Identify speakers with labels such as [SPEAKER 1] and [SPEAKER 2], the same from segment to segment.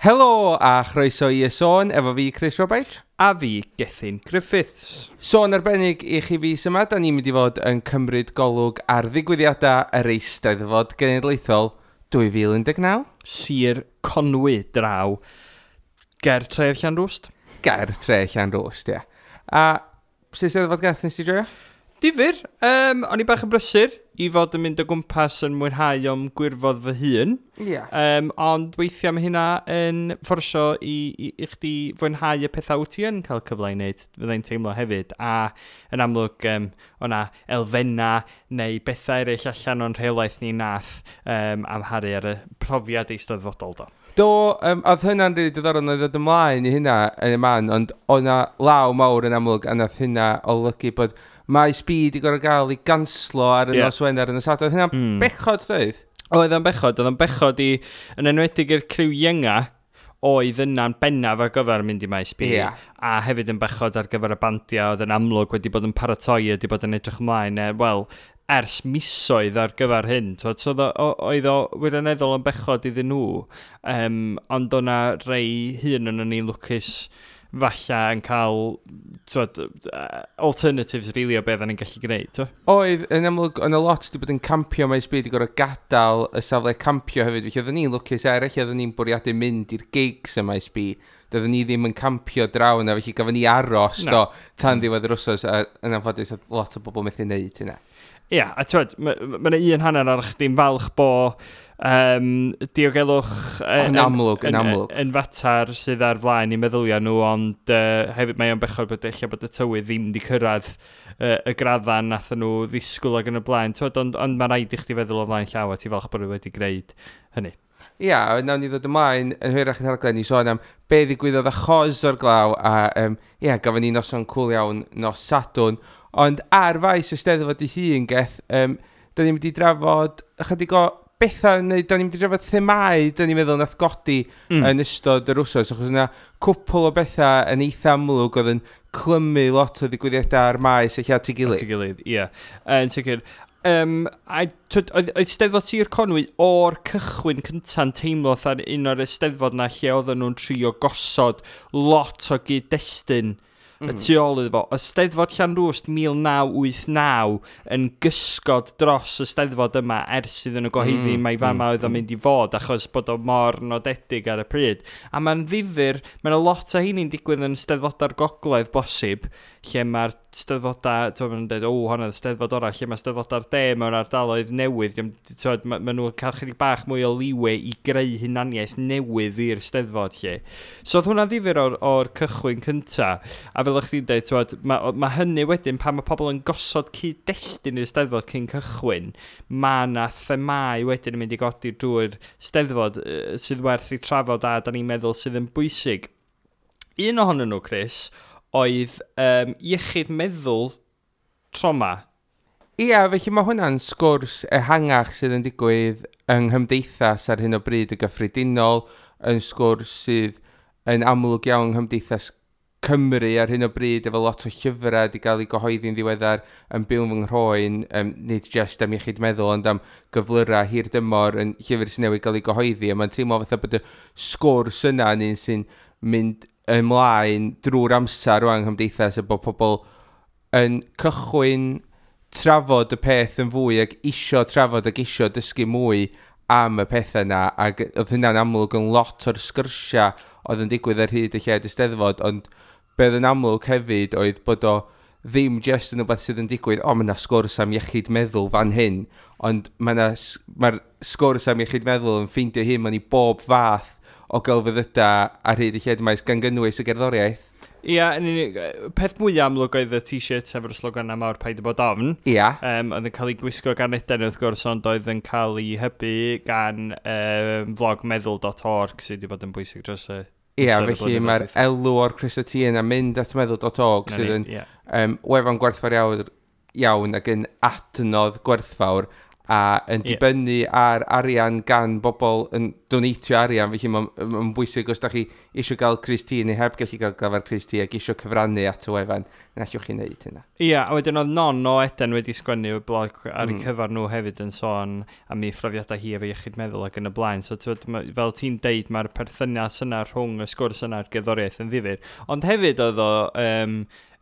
[SPEAKER 1] Helo a chroeso i Y Sôn efo fi Chris Roberts.
[SPEAKER 2] A fi Gethin Griffiths.
[SPEAKER 1] Sôn arbennig i chi fis yma, da ni'n mynd i fod yn cymryd golwg ar ddigwyddiadau yr Eisteddfod Genedlaethol 2019.
[SPEAKER 2] Sir Conwy draw ger tref Llanrwst.
[SPEAKER 1] Ger tre Llanrwst, ie. A sut Eisteddfod gath nes ti joio?
[SPEAKER 2] Difyr, o'n i bach yn brysur i fod yn mynd o gwmpas yn mwynhau o'm gwirfodd fy hun.
[SPEAKER 1] Ie.
[SPEAKER 2] Ond weithiau mae hynna yn fforsio i chdi fwynhau y pethau wyt ti yn cael cyfle i wneud, fyddai'n teimlo hefyd. A yn amlwg, o'na elfennau neu bethau eraill allan o'n rheolaeth ni nath amharu ar y profiad eisteddfodol do.
[SPEAKER 1] Do, oedd hynna'n rili diddorol, oedd ddod ymlaen i hynna yn y man, ond oedd 'na law mawr yn amlwg, a nath hynna olygu bod Maes B di gorfod gael ei ganslo ar y nos Wener yn y Sadwrn. Oedd hynna'n bechod, doedd?
[SPEAKER 2] Oedd o'n bechod, oedd o'n bechod i, yn enwedig i'r criw ienga, oedd yna'n bennaf ar gyfer mynd i Maes B. A hefyd yn bechod ar gyfer y bandiau oedd yn amlwg wedi bod yn paratoi, wedi bod yn edrych ymlaen, wel, ers misoedd ar gyfer hyn. T'wod, so oedd o wirioneddol yn bechod iddyn nhw, ond o'na rei hun yn ni'n lwcus falle yn cael, t'wod, alternatives really o beth o'n i'n gallu gwneud. T'wod?
[SPEAKER 1] Oedd, yn amlwg, oedd 'na lot wedi bod yn campio Maes B wedi gorfod gadael y safle campio hefyd, felly oedden ni'n lwcus eraill, oedden ni'n bwriadu mynd i'r gigs ym Maes B, doedden ni ddim yn campio draw yna, felly gafon ni aros
[SPEAKER 2] Na.
[SPEAKER 1] do, tan ddiwedd yr wsos, a yn anffodus oedd lot o bobl methu wneud hynna.
[SPEAKER 2] Ia, a t'wod, ma' 'na un hanner ar chdi'n falch bo diogelwch
[SPEAKER 1] Yn amlwg, yn amlwg.
[SPEAKER 2] yn fatar sydd ar flaen i meddyliau nhw, ond hefyd mae o'n bechod bod ella bod y tywydd ddim wedi cyrraedd y gradda nath nhw ddisgwyl ac yn y blaen, t'wod, ond mae rhaid i chdi feddwl o flaen llaw a ti falch bod nhw wedi gwneud hynny.
[SPEAKER 1] Ia, a nawn ni ddod ymlaen yn hwyrach yn rhaglen i sôn am be ddigwyddodd achos o'r glaw, a ia, gafon ni noson cwl iawn nos Sadwrn, ond ar faes y Steddfod ei hun, Geth, da ni'n mynd i drafod ychydig o bethau, neu da ni'n mynd i drafod themau, da ni'n meddwl nath godi yn ystod yr wsos, achos yna cwpl o bethau yn eitha amlwg oedd yn clymu lot o ddigwyddiadau ar maes eich at ei gilydd.
[SPEAKER 2] At ei gilydd, ie. Yn sicr. A twyd, oedd Steddfod Sir Conwy o'r cychwyn cynta'n teimlo fatha un o'r Eisteddfod na lle oedden nhw'n trio gosod lot o gyd-destun y tu ôl iddo fo. Y Steddfod Llanrwst 1989 yn gysgod dros y Steddfod yma ers iddyn nhw gyhoeddi mai fama oedd o'n mynd i fod, achos bod o mor nodedig ar y pryd. A mae'n ddifyr, mae'n lot o hynny'n digwydd yn Steddfodau'r Gogledd bosib, lle mae'r Steddfodau, t'wod, maen nhw'n dweud, o, hwnna oedd Steddfod orau, lle mae Steddfodau'r De mewn ardaloedd newydd, t'wod, ma nhw'n cael chydig bach mwy o leeway i greu hunaniaeth newydd i'r Steddfod, lle. So oedd hwnna'n ddifyr o'r cychwyn cynta, a fel o'ch chdi'n dweud, t'wod, ma hynny wedyn, pan mae pobl yn gosod cyd-destun i'r Steddfod cyn cychwyn, ma' 'na themâu wedyn yn mynd i godi drwy'r Steddfod sydd werth i trafod a da ni'n meddwl sydd yn bwysig. Un ohonyn nhw, Chris, oedd iechyd meddwl trauma.
[SPEAKER 1] Ia, felly mae hwnna'n sgwrs ehangach sydd yn digwydd yng nghymdeithas ar hyn o bryd y gyffredinol, yn sgwrs sydd yn amlwg iawn yng nghymdeithas Cymru ar hyn o bryd, efo lot o llyfrau wedi cael eu gyhoeddi'n ddiweddar yn byw fy nghroen, nid jyst am iechyd meddwl, ond am gyflyrau hir dymor yn llyfr sy'n newydd gael ei gyhoeddi, a mae'n teimlo fatha bod y sgwrs yna yn un sy'n mynd ymlaen drwy'r amser rwan yng nghymdeithas, a bod pobl yn cychwyn trafod y peth yn fwy ac isio trafod ac isio dysgu mwy am y pethau yna, ac oedd hynna'n amlwg yn lot o'r sgyrsiau oedd yn digwydd ar hyd y lled Eisteddfod, ond be oedd yn amlwg hefyd oedd bod o ddim jyst yn rhywbeth sydd yn digwydd, o, mae yna sgwrs am iechyd meddwl fan hyn, ond mae'r sgwrs am iechyd meddwl yn ffeindio hyn mewn i bob fath o gelfyddydau ar hyd y lled maes, gan gynnwys y gerddoriaeth.
[SPEAKER 2] Ia, yn unig, peth mwyaf amlwg oedd y t-shirt efo'r slogan mawr Paid â bod ofn. Oedd yn cael ei gwisgo gan Eden wrth gwrs, ond oedd yn cael ei hybu gan vlog meddwl.org sydd wedi bod yn bwysig dros y
[SPEAKER 1] Ia,
[SPEAKER 2] amser y
[SPEAKER 1] felly
[SPEAKER 2] blynyddoedd
[SPEAKER 1] mae'r
[SPEAKER 2] dwytha.
[SPEAKER 1] elw o'r crysau T yna mynd at meddwl.org
[SPEAKER 2] Na
[SPEAKER 1] sydd
[SPEAKER 2] ni,
[SPEAKER 1] yn
[SPEAKER 2] ie.
[SPEAKER 1] wefan gwerthfawr iawn ac yn adnodd gwerthfawr A yn dibynnu ar arian gan bobl yn donatio arian, felly mae'n ma bwysig os da chi eisiau gael crys-T neu heb gallu gael gafael crys-T ac eisiau cyfrannu at y wefan, na allwch chi wneud hynna.
[SPEAKER 2] Ia, a wedyn oedd Non o Eden wedi sgwennu y blog ar ei cyfer nhw hefyd yn sôn am ei phrofiadau hi efo iechyd meddwl ac yn y blaen. So, t'wod, fel ti'n deud, mae'r perthynas yna rhwng y sgwrs yna a'r gerddoriaeth yn ddifyr. Ond hefyd oedd o,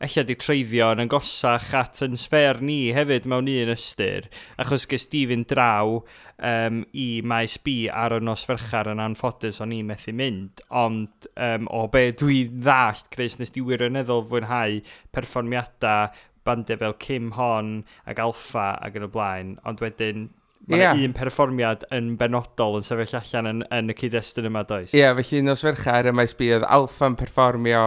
[SPEAKER 2] ella di treiddio yn agosach at yn sffêr ni hefyd mewn un ystyr, achos ges di fynd draw i Maes B ar y nos Fercher yn anffodus, o'n i methu mynd, ond o be dwi'n ddallt, Chris, nes di wirioneddol fwynhau perfformiadau bandiau fel Kim Hon ac Alffa ac yn y blaen, ond wedyn mae 'na un perfformiad yn benodol yn sefyll allan yn y cyd-destun yma, does?
[SPEAKER 1] Ie, yeah, felly nos Fercher y Maes B oedd Alffa'n perfformio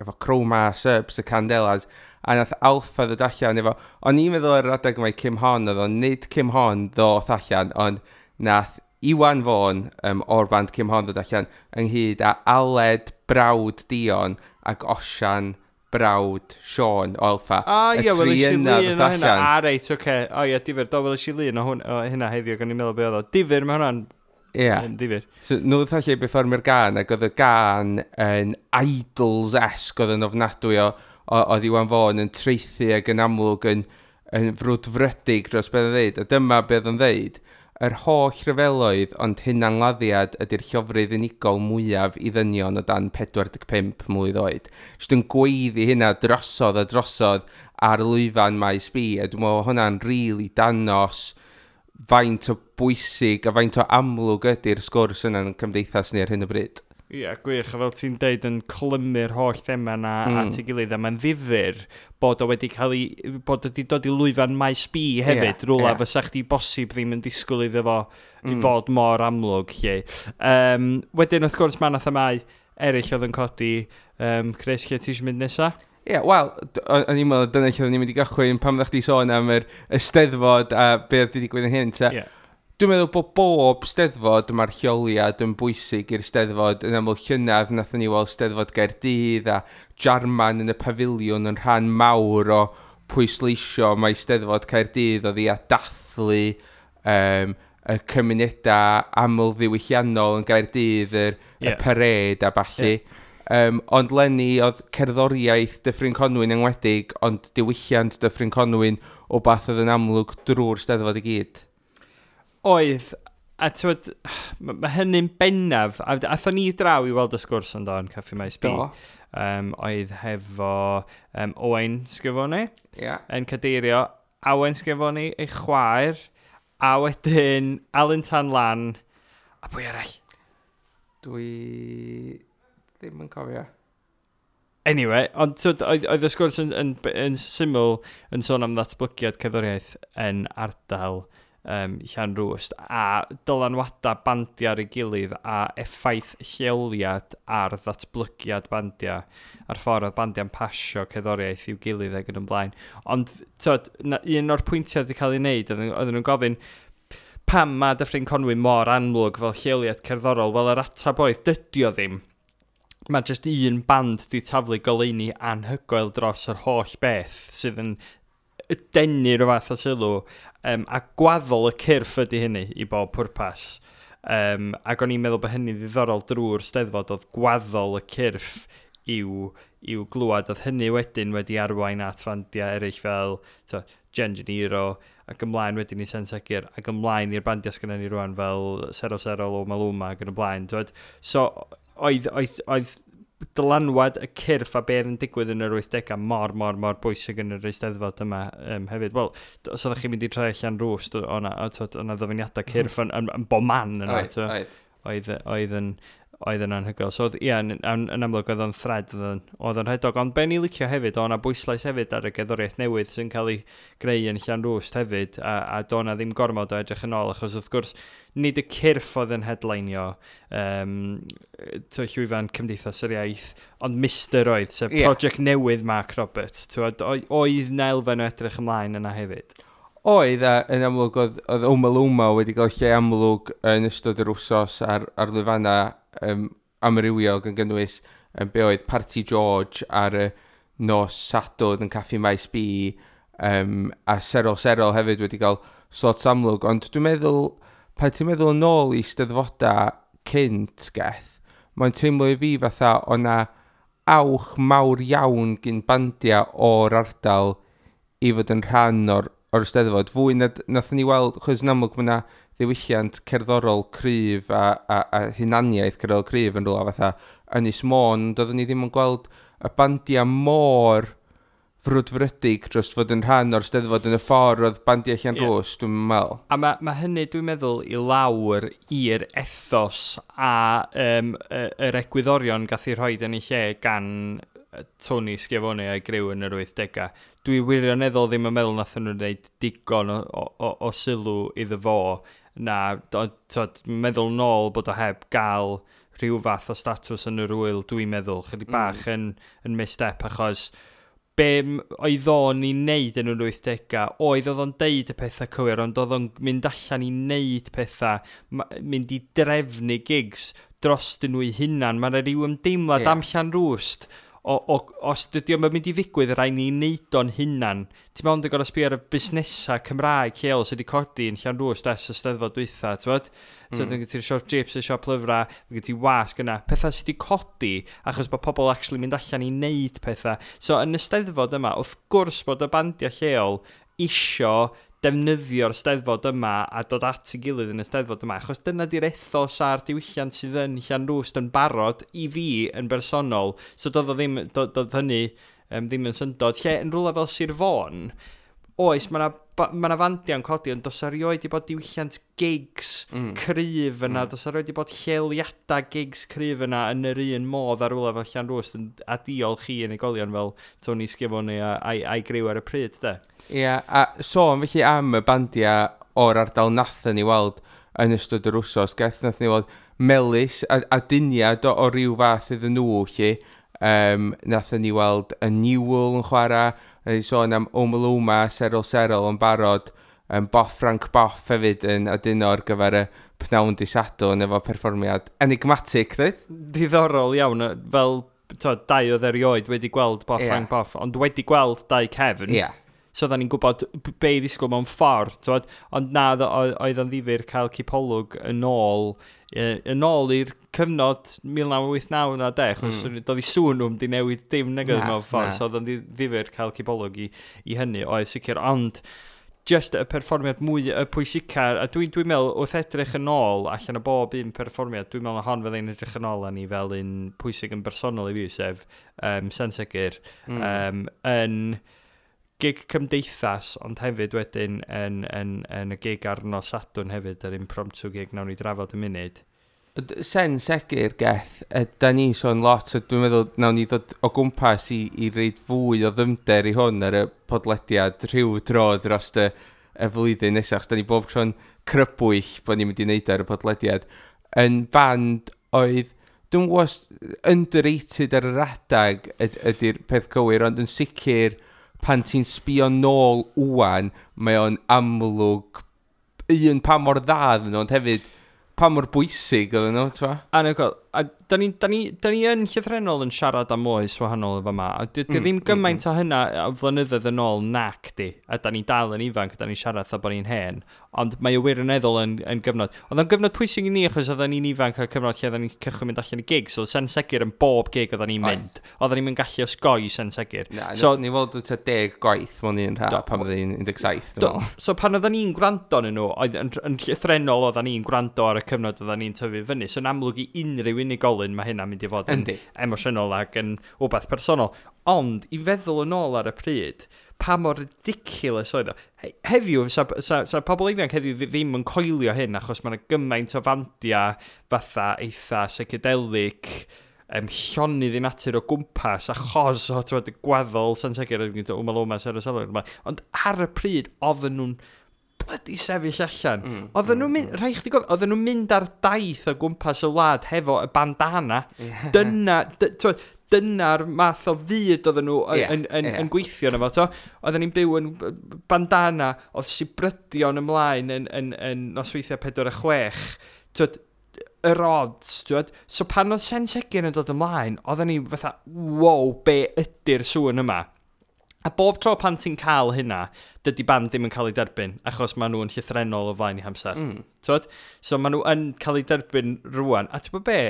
[SPEAKER 1] efo Chroma, Subs, y Candelas, a nath Alffa ddod allan efo, o'n i'n meddwl ar yr adeg mai Kim Hon oedd o, nid Kim Hon ddoth allan, ond nath Iwan Fôn o'r band Kim Hon ddod allan ynghyd â Aled brawd Dion ac Osian brawd Sean o Alffa.
[SPEAKER 2] Ah,
[SPEAKER 1] Y
[SPEAKER 2] ie,
[SPEAKER 1] tri
[SPEAKER 2] weles i
[SPEAKER 1] yna
[SPEAKER 2] lun
[SPEAKER 1] ddoth
[SPEAKER 2] o hynna.
[SPEAKER 1] allan.
[SPEAKER 2] A, reit, oce. O, ie, difyr. Do, weles i lun o hynna heddiw, gan i'n meddwl be oedd o. Difyr, mae hwnna'n yn difyr.
[SPEAKER 1] So, nhw ddoth allan i berfformio'r gan, ac oedd y gan yn Idols-esque, oedd yn ofnadwy o oedd Iwan Fôn yn traethu ac yn amlwg yn frwdfrydig dros beth oedd ddeud. A dyma beth oedd o'n ddeud. Yr holl rhyfeloedd ond hunanladdiad ydy'r llofrudd unigol mwyaf i ddynion o dan 45 mlwydd oed. Jyst yn gweiddi hynna drosodd a drosodd ar lwyfan Maes B, a dwi'n meddwl hwnna'n rili danos faint o bwysig a faint o amlwg ydy'r sgwrs yna yn cymdeithas ni ar hyn o bryd.
[SPEAKER 2] Ie, gwych, a fel ti'n deud, yn clymu'r holl thema na at ei gilydd, a mae'n ddifyr bod o wedi cael ei, bod o wedi dod i lwyfan Maes B hefyd, rwla fysa chdi bosib ddim yn disgwyl iddo fo i fod mor amlwg, lle. Wedyn, wrth gwrs, mae 'na themâu eraill oedd yn codi. Chris, lle ti eisiau mynd nesa?
[SPEAKER 1] Ie, yeah, wel, o'n i'n meddwl dyna lle oedden ni'n mynd i gychwyn pan oeddech chdi sôn am yr Eisteddfod a be oedd wedi digwydd yn hyn. Ta. Dwi'n meddwl bod bob Steddfod, mae'r lleoliad yn bwysig i'r Steddfod. Yn aml llynedd, nathon ni weld Steddfod Gaerdydd a Jarman yn y pafiliwn yn rhan mawr o pwysleisio mae Steddfod Caerdydd oedd i a dathlu y cymunedau aml ddiwylliannol yn Gaerdydd, y parade a ballu. Ond leni oedd cerddoriaeth Dyffryn Conwy'n enwedig, ond diwylliant Dyffryn Conwy'n o bath oedd yn amlwg drwy'r Steddfod i gyd.
[SPEAKER 2] Oedd, a t'wod, ma hynny'n bennaf, a athon ni draw i weld y sgwrs yn do yn Caffi Maes B.
[SPEAKER 1] Do.
[SPEAKER 2] Oedd hefo Owain Schiavone yn cadeirio, Awen Schiavone, ei chwaer, a wedyn Alun Tan Lan, a pwy arall?
[SPEAKER 1] Dwi ddim yn cofio.
[SPEAKER 2] Anyway, ond t'wod, oedd y sgwrs yn syml yn sôn am ddatblygiad cerddoriaeth yn ardal Llanrwst a dylanwadau bandiau ar ei gilydd a effaith lleoliad ar ddatblygiad bandiau a'r ffordd oedd bandiau'n pasio cerddoriaeth i'w gilydd ac yn ymlaen. Ond t'wod, un o'r pwyntiau wedi cael ei wneud, oedden nhw'n gofyn pam mae Dyffryn Conwy mor amlwg fel lleoliad cerddorol? Wel, yr ateb oedd, dydy o ddim. Mae jyst un band di taflu goleuni anhygoel dros yr holl beth sydd yn denu rhyw fath o sylw, a gwaddol y cyrff ydy hynny i bob pwrpas. Ac o'n i'n meddwl bod hynny'n ddiddorol drwy'r Steddfod, oedd gwaddol y cyrff i'w glwad. Oedd hynny wedyn wedi arwain at fandiau eraill fel Jen Jeniro, ac ymlaen wedyn i Sen Segur, ac ymlaen i'r bandiau sgynnon ni rwan fel Sero Sero, Loma Luma ac yn y blaen. T'wod? So, oedd dylanwad y cyrff a beth yn digwydd yn yr 80au mor, mor, mor bwysig yn yr Eisteddfod yma hefyd. Wel, os oeddech chi'n mynd i troi Llanrwst, o'na ddyfyniadau cyrff yn bob man yna, t'o'? Oedd yn anhygoel. So, ie, yn amlwg oedd o'n thread, oedd o'n rhedog. Ond be ni licio hefyd, oedd o'na bwyslais hefyd ar y gerddoriaeth newydd sy'n cael ei greu yn Llanrwst hefyd, a do' na ddim gormod o edrych yn ôl, achos wrth gwrs, nid y cyrff oedd yn headlineio llwyfan Cymdeithas yr Iaith, ond Mister oedd, sef project newydd Mark Roberts. T'wod, oedd 'na elfen o edrych ymlaen yna hefyd.
[SPEAKER 1] Oedd, a yn amlwg oedd Omaloma wedi cael lle amlwg yn ystod yr wsos ar lwyfannau amrywiol gan gynnwys be oedd Parti George ar y nos Sadwrn yn Caffi Maes B, A Serol Serol hefyd wedi cael slot amlwg, ond dwi'n meddwl, pan ti'n meddwl yn ôl i steddfodau cynt, Geth, mae'n teimlo i fi fatha o na awch mawr iawn gyn bandiau o'r ardal i fod yn rhan o'r steddfod. Fwy na nathon ni weld, chos yn amlwg mae yna ddiwylliant cerddorol cryf a hunaniaeth cerddorol cryf yn rhywle fatha Ynys Môn, doeddwn ni ddim yn gweld y bandiau mor frwdfrydig dros fod yn rhan o'r steddfod yn y ffordd oedd bandiau Llanrwst, dwi'n meddwl.
[SPEAKER 2] A mae hynny, dwi'n meddwl, i lawr i'r ethos a yr egwyddorion gath ei rhoi yn ei lle gan Tony Schiavone a'i griw yn yr 80au. Dwi wirioneddol ddim yn meddwl nath nhw'n gwneud digon o sylw iddo fo. Na, tod, meddwl nôl bod o heb gael rhyw fath o statws yn yr wyl, dwi'n meddwl, chydig bach yn misstep, achos be oedd o'n i wneud yn yr 80au, oedd o'n deud y pethau cywir, ond oedd o'n mynd allan i wneud pethau, mynd i drefnu gigs dros nhw eu hunan. Mae yna rhyw ymdeimlad am Llanrwst, os dydy o'm yn mynd i ddigwydd, rhaid ni wneud o'n hunan. Ti'n meddwl yn gorfod sbio ar y busnesau Cymraeg lleol sydd wedi codi yn Llanrwst ers y steddfod dwytha, ti'n bod? Mm. Ti'n siop chips, y siop lyfrau, mae gen ti wasg yna. Pethau sydd wedi codi achos bod pobl actually mynd allan i wneud pethau. So yn y steddfod yma, wrth gwrs bod y bandiau lleol isio defnyddio'r steddfod yma a dod at ei gilydd yn y steddfod yma, achos dyna di'r ethos a'r diwylliant sydd yn Llanrwst yn barod i fi yn bersonol. So doedd o ddim, doedd hynny ddim yn syndod. Lle yn rhywle fel Sir Fôn, oes, mae 'na fandiau'n codi, ond does erioed 'di bod diwylliant gigs cryf yna, does erioed 'di bod lleoliadau gigs cryf yna yn yr un modd ar rhywle fel Llanrwst, a diolch i unigolion fel Tony Schiavone a'i griw ar y pryd, de.
[SPEAKER 1] Ie, yeah, a sôn felly am y bandiau o'r ardal nathon ni weld yn ystod yr wsos, Geth, nathon ni weld Melys a Duniad o ryw fath iddyn nhw, lle. Nathon ni weld y Newell yn chwarae, ni sôn am Omaloma, Serol Serol yn barod, Boff Frank Boff hefyd yn aduno ar gyfer y pnawn di Sadwrn efo perfformiad enigmatic, dweud?
[SPEAKER 2] Diddorol iawn, fel to, dau oedd erioed wedi gweld Boff Frank Boff, ond wedi gweld Dau Cefn. So oedden ni'n gwybod be i ddisgwyl mewn ffordd, twod? Ond na, oedd o'n ddifyr cael cipolwg yn ôl i'r cyfnod 1989 na de, achos doedd i sŵn nhw'n di newid dim nag oedd mewn ffordd, so oedd o'n ddifyr cael cipolwg i hynny, oedd sicr, ond just y perfformiad mwy y pwysica, a dwi'n meddwl wrth edrych yn ôl allan o bob un perfformiad, dwi'n meddwl na hon fyddai'n edrych yn ôl â ni fel un pwysig yn bersonol i fi, sef Sen Segur, yn gig cymdeithas, ond hefyd wedyn yn y gig ar nos Sadwrn hefyd, yr impromptu gig nawn ni drafod y munud.
[SPEAKER 1] Sen Segur, Geth, da ni'n sôn lot, a dwi'n meddwl nawn ni ddod o gwmpas i reid fwy o ddyfnder i hwn ar y podlediad rhyw dro dros y flwyddyn nesaf, achos da ni bob tro'n crybwyll bod ni'n mynd i wneud ar y podlediad. Yn band oedd, dwi'n gwybod, underrated ar yr adag ydy'r peth cywir, ond yn sicr pan ti'n sbio nôl wwan, mae o'n amlwg un pa mor dda oedden nhw, ond hefyd pa mor bwysig oedden nhw, ti'n
[SPEAKER 2] Anhygoel. A da ni yn llythrennol yn siarad am oes wahanol efo yma. A di ddim gymaint o hynna o flynyddoedd yn ôl nac di. A da ni dal yn ifanc, a da ni'n siarad fatha bod ni'n hen. Ond mae o wirioneddol yn gyfnod. Oedd o'n gyfnod pwysig i ni achos oedden ni'n ifanc a cyfnod lle oedden ni'n cychwyn mynd allan i gig. So Sen Segur yn bob gig oedden ni'n mynd. Oedden ni'n gallu osgoi Sen Segur.
[SPEAKER 1] Na, so, ni weld tua 10 gwaith mewn un rha pan oedden ni'n 17, dwi'n meddwl.
[SPEAKER 2] So pan oedden ni'n gwrando arnyn nhw, oedd yn llythrennol oedden ni'n gwrando ar y cyfnod oedden ni'n tyfu fyny. So yn amlwg i unrhyw unigolyn mae hynna'n mynd i fod yn emosiynol ac yn wbeth personol. Ond i feddwl yn ôl ar y pryd, pa mor ridiculous oedd o. Heddiw, sa pobl ifanc heddiw ddim yn coelio hyn, achos mae yna gymaint o fandiau fatha eitha psychedelic, llonydd i natur o gwmpas, achos o y gwaddol Sen Segur, Omaloma, Serol Serol. Ond ar y pryd, oedden nhw'n bloody sefyll allan. Oedden nhw'n mynd, rhaid chdi gofio, oedden nhw'n mynd ar daith o gwmpas y wlad hefo y bandana. Dyna'r math o fyd oedden nhw yn gweithio yna fo. Oedden ni'n byw yn bandana, oedd sibrydion ymlaen yn nosweithiau 4 a 6. Twod, yr odds, twod. So pan oedd Sen Segur yn dod ymlaen, oedden ni fatha, wow, be ydy'r sŵn yma? A bob tro pan ti'n cael hynna, dydy band ddim yn cael ei derbyn, achos maen nhw yn llythrennol o flaen eu hamser. T'wod? So maen nhw yn cael ei derbyn rwan. A ti'n gwybod be?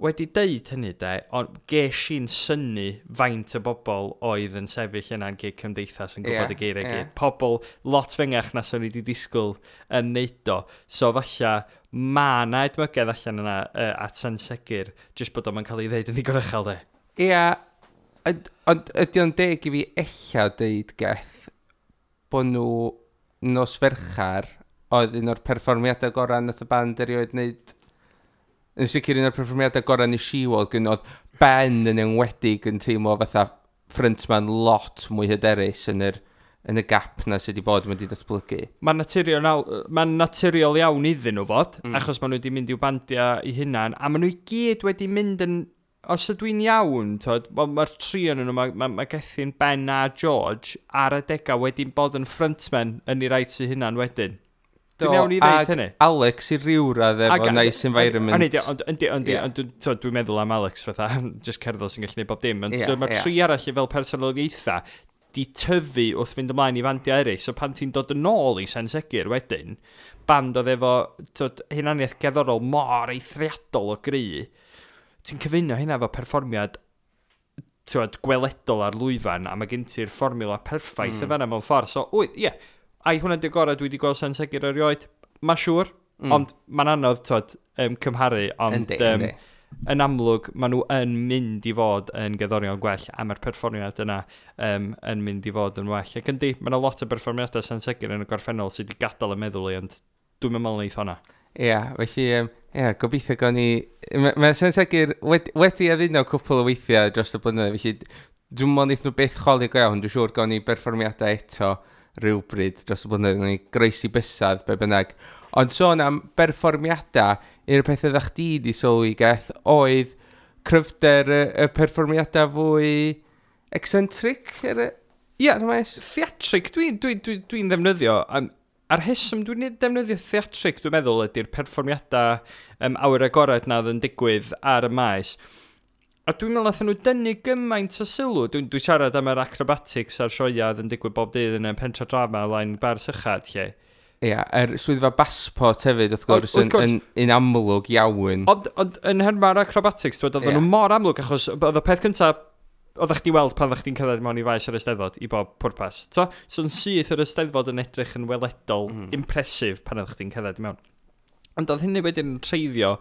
[SPEAKER 2] Wedi deud hynny de, ond ges i'n synnu faint o bobl oedd yn sefyll yna'n gig Cymdeithas yn gwybod y geiriau gyd. Pobl lot fengach na swn i wedi disgwyl yn neud o. So falle ma' na edmygedd allan yna at Sen Segur, jyst bod o'n cael ei ddeud yn ddigon uchel de.
[SPEAKER 1] Ia, ond ydy o'n deg i fi ella deud, Geth, bod nhw nos Ferchar oedd un o'r perfformiadau gorau nath y band erioed wneud. Yn sicr un o'r perfformiadau gorau nes i weld, gyn oedd Ben yn enwedig yn teimlo fatha frontman lot mwy hyderus yn y gap na sydd wedi bod wedi datblygu.
[SPEAKER 2] Mae'n naturiol iawn iddyn nhw fod, achos maen nhw wedi mynd i'w bandiau eu hunan, a maen nhw i gyd wedi mynd yn... Os ydw i'n iawn, t'od, wel, mae'r tri yn nhw, mae Gethin, Ben a George ar adegau wedi bod yn frontmen yn ei rait eu hunan wedyn. Dwi'n iawn i ddeud
[SPEAKER 1] ag
[SPEAKER 2] hynny?
[SPEAKER 1] Alex i ryw radd efo Nice Environment.
[SPEAKER 2] Ond yndi, ond dwi'n meddwl am Alex fatha, just cerddor sy'n gallu gwneud bob dim. Ond mae'r tri arall fel personoliaethau di tyfu wrth fynd ymlaen i fandiau eraill. So pan ti'n dod yn ôl i Sen Segur wedyn, band oedd efo, t'od, hunaniaeth gerddorol mor eithriadol o gry, ti'n cyfuno hynna efo perfformiad, t'wod, gweledol ar lwyfan, a mae gen ti'r fformiwla perffaith y fan'na mewn ffordd. So, wyt, ie, ai hwnna'n di'r gorau dwi wedi gweld Sen Segur erioed? Ma' siŵr, ond mae'n anodd, t'wod, cymharu, ond, yn amlwg, maen nhw yn mynd i fod yn gerddorion gwell, a mae'r perfformiad yna yn mynd i fod yn well. Ac yndi, mae yna lot o berfformiadau Sen Segur yn y gorffennol sydd wedi gadael y meddwl i, ond dwi'n meddwl neith honna.
[SPEAKER 1] Ia, felly, ia, gobeithio gawn ni... Mae Sen Segur wedi addunno cwpl o weithiau dros y blynyddoedd, felly dwi'n meddwl neith nhw byth chwalu go iawn, dwi'n siŵr gawn ni berfformiadau eto rhywbryd dros y blynyddoedd, gawn ni groesi bysedd, be bynnag. Ond sôn am berfformiadau, un o'r pethau ddech chdi di sylwi, Geth, oedd cryfder y perfformiadau fwy eccentric ar y ar y maes?
[SPEAKER 2] Theatrig, dwi'n ddefnyddio. A'r rheswm dwi'n defnyddio theatrig, dwi'n meddwl, ydy'r perfformiadau awyr agored na oedd yn digwydd ar y maes. A dwi'n meddwl nathon nhw dynnu gymaint o sylw. Dwi siarad am yr acrobatics a'r sioeau oedd yn digwydd bob dydd yn y pentra drama lain bar sychad, lle.
[SPEAKER 1] Ia, yr swyddfa bassport hefyd, wrth gwrs,
[SPEAKER 2] Wrth gwrs.
[SPEAKER 1] yn amlwg iawn.
[SPEAKER 2] Ond yn nhermau'r acrobatics, dwi, oedden nhw mor amlwg, achos oedd y peth cyntaf oeddech chdi weld pan oeddech chdi'n cerdded mewn i faes yr Eisteddfod i bob pwrpas. So yn syth yr Eisteddfod yn edrych yn weledol, impressive pan oeddech chdi'n cerdded i mewn. Ond oedd hynny wedyn yn treiddio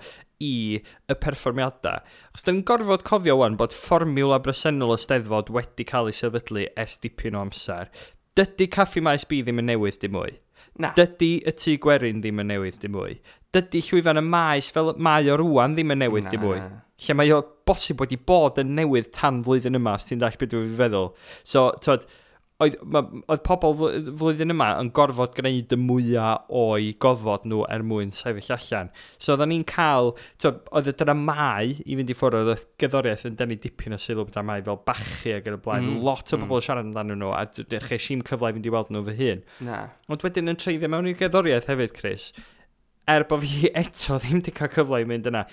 [SPEAKER 2] i y perfformiadau. Achos da ni'n gorfod cofio wan bod fformiwla bresennol y Steddfod wedi cael ei sefydlu ers dipyn o amser. Dydy Caffi Maes B ddim yn newydd dim mwy.
[SPEAKER 1] Na.
[SPEAKER 2] Dydy y Tŷ Gwerin ddim yn newydd dim mwy. Dydy llwyfan y maes fel mae o rwan ddim yn newydd dim mwy. Lle mae o bosib wedi bod yn newydd tan flwyddyn yma, os ti'n dallt beth dwi'n feddwl. So, t'wod, oedd pobl flwyddyn yma yn gorfod gwneud y mwyaf o'i gofod nhw er mwyn sefyll allan. So oedden ni'n cael, t'wod, oedd y dramau i fynd i ffwrdd, oedd gerddoriaeth yn denu dipyn o sylw dramau fel Bachu ac yn y blaen. Lot o bobl yn siarad amdanyn nhw, a ches i'm cyfle i fynd i weld nhw fy hun.
[SPEAKER 1] Na.
[SPEAKER 2] Ond wedyn yn treiddio mewn i'r gerddoriaeth hefyd, Chris, er bod fi eto ddim wedi cael cyfle i mynd yna,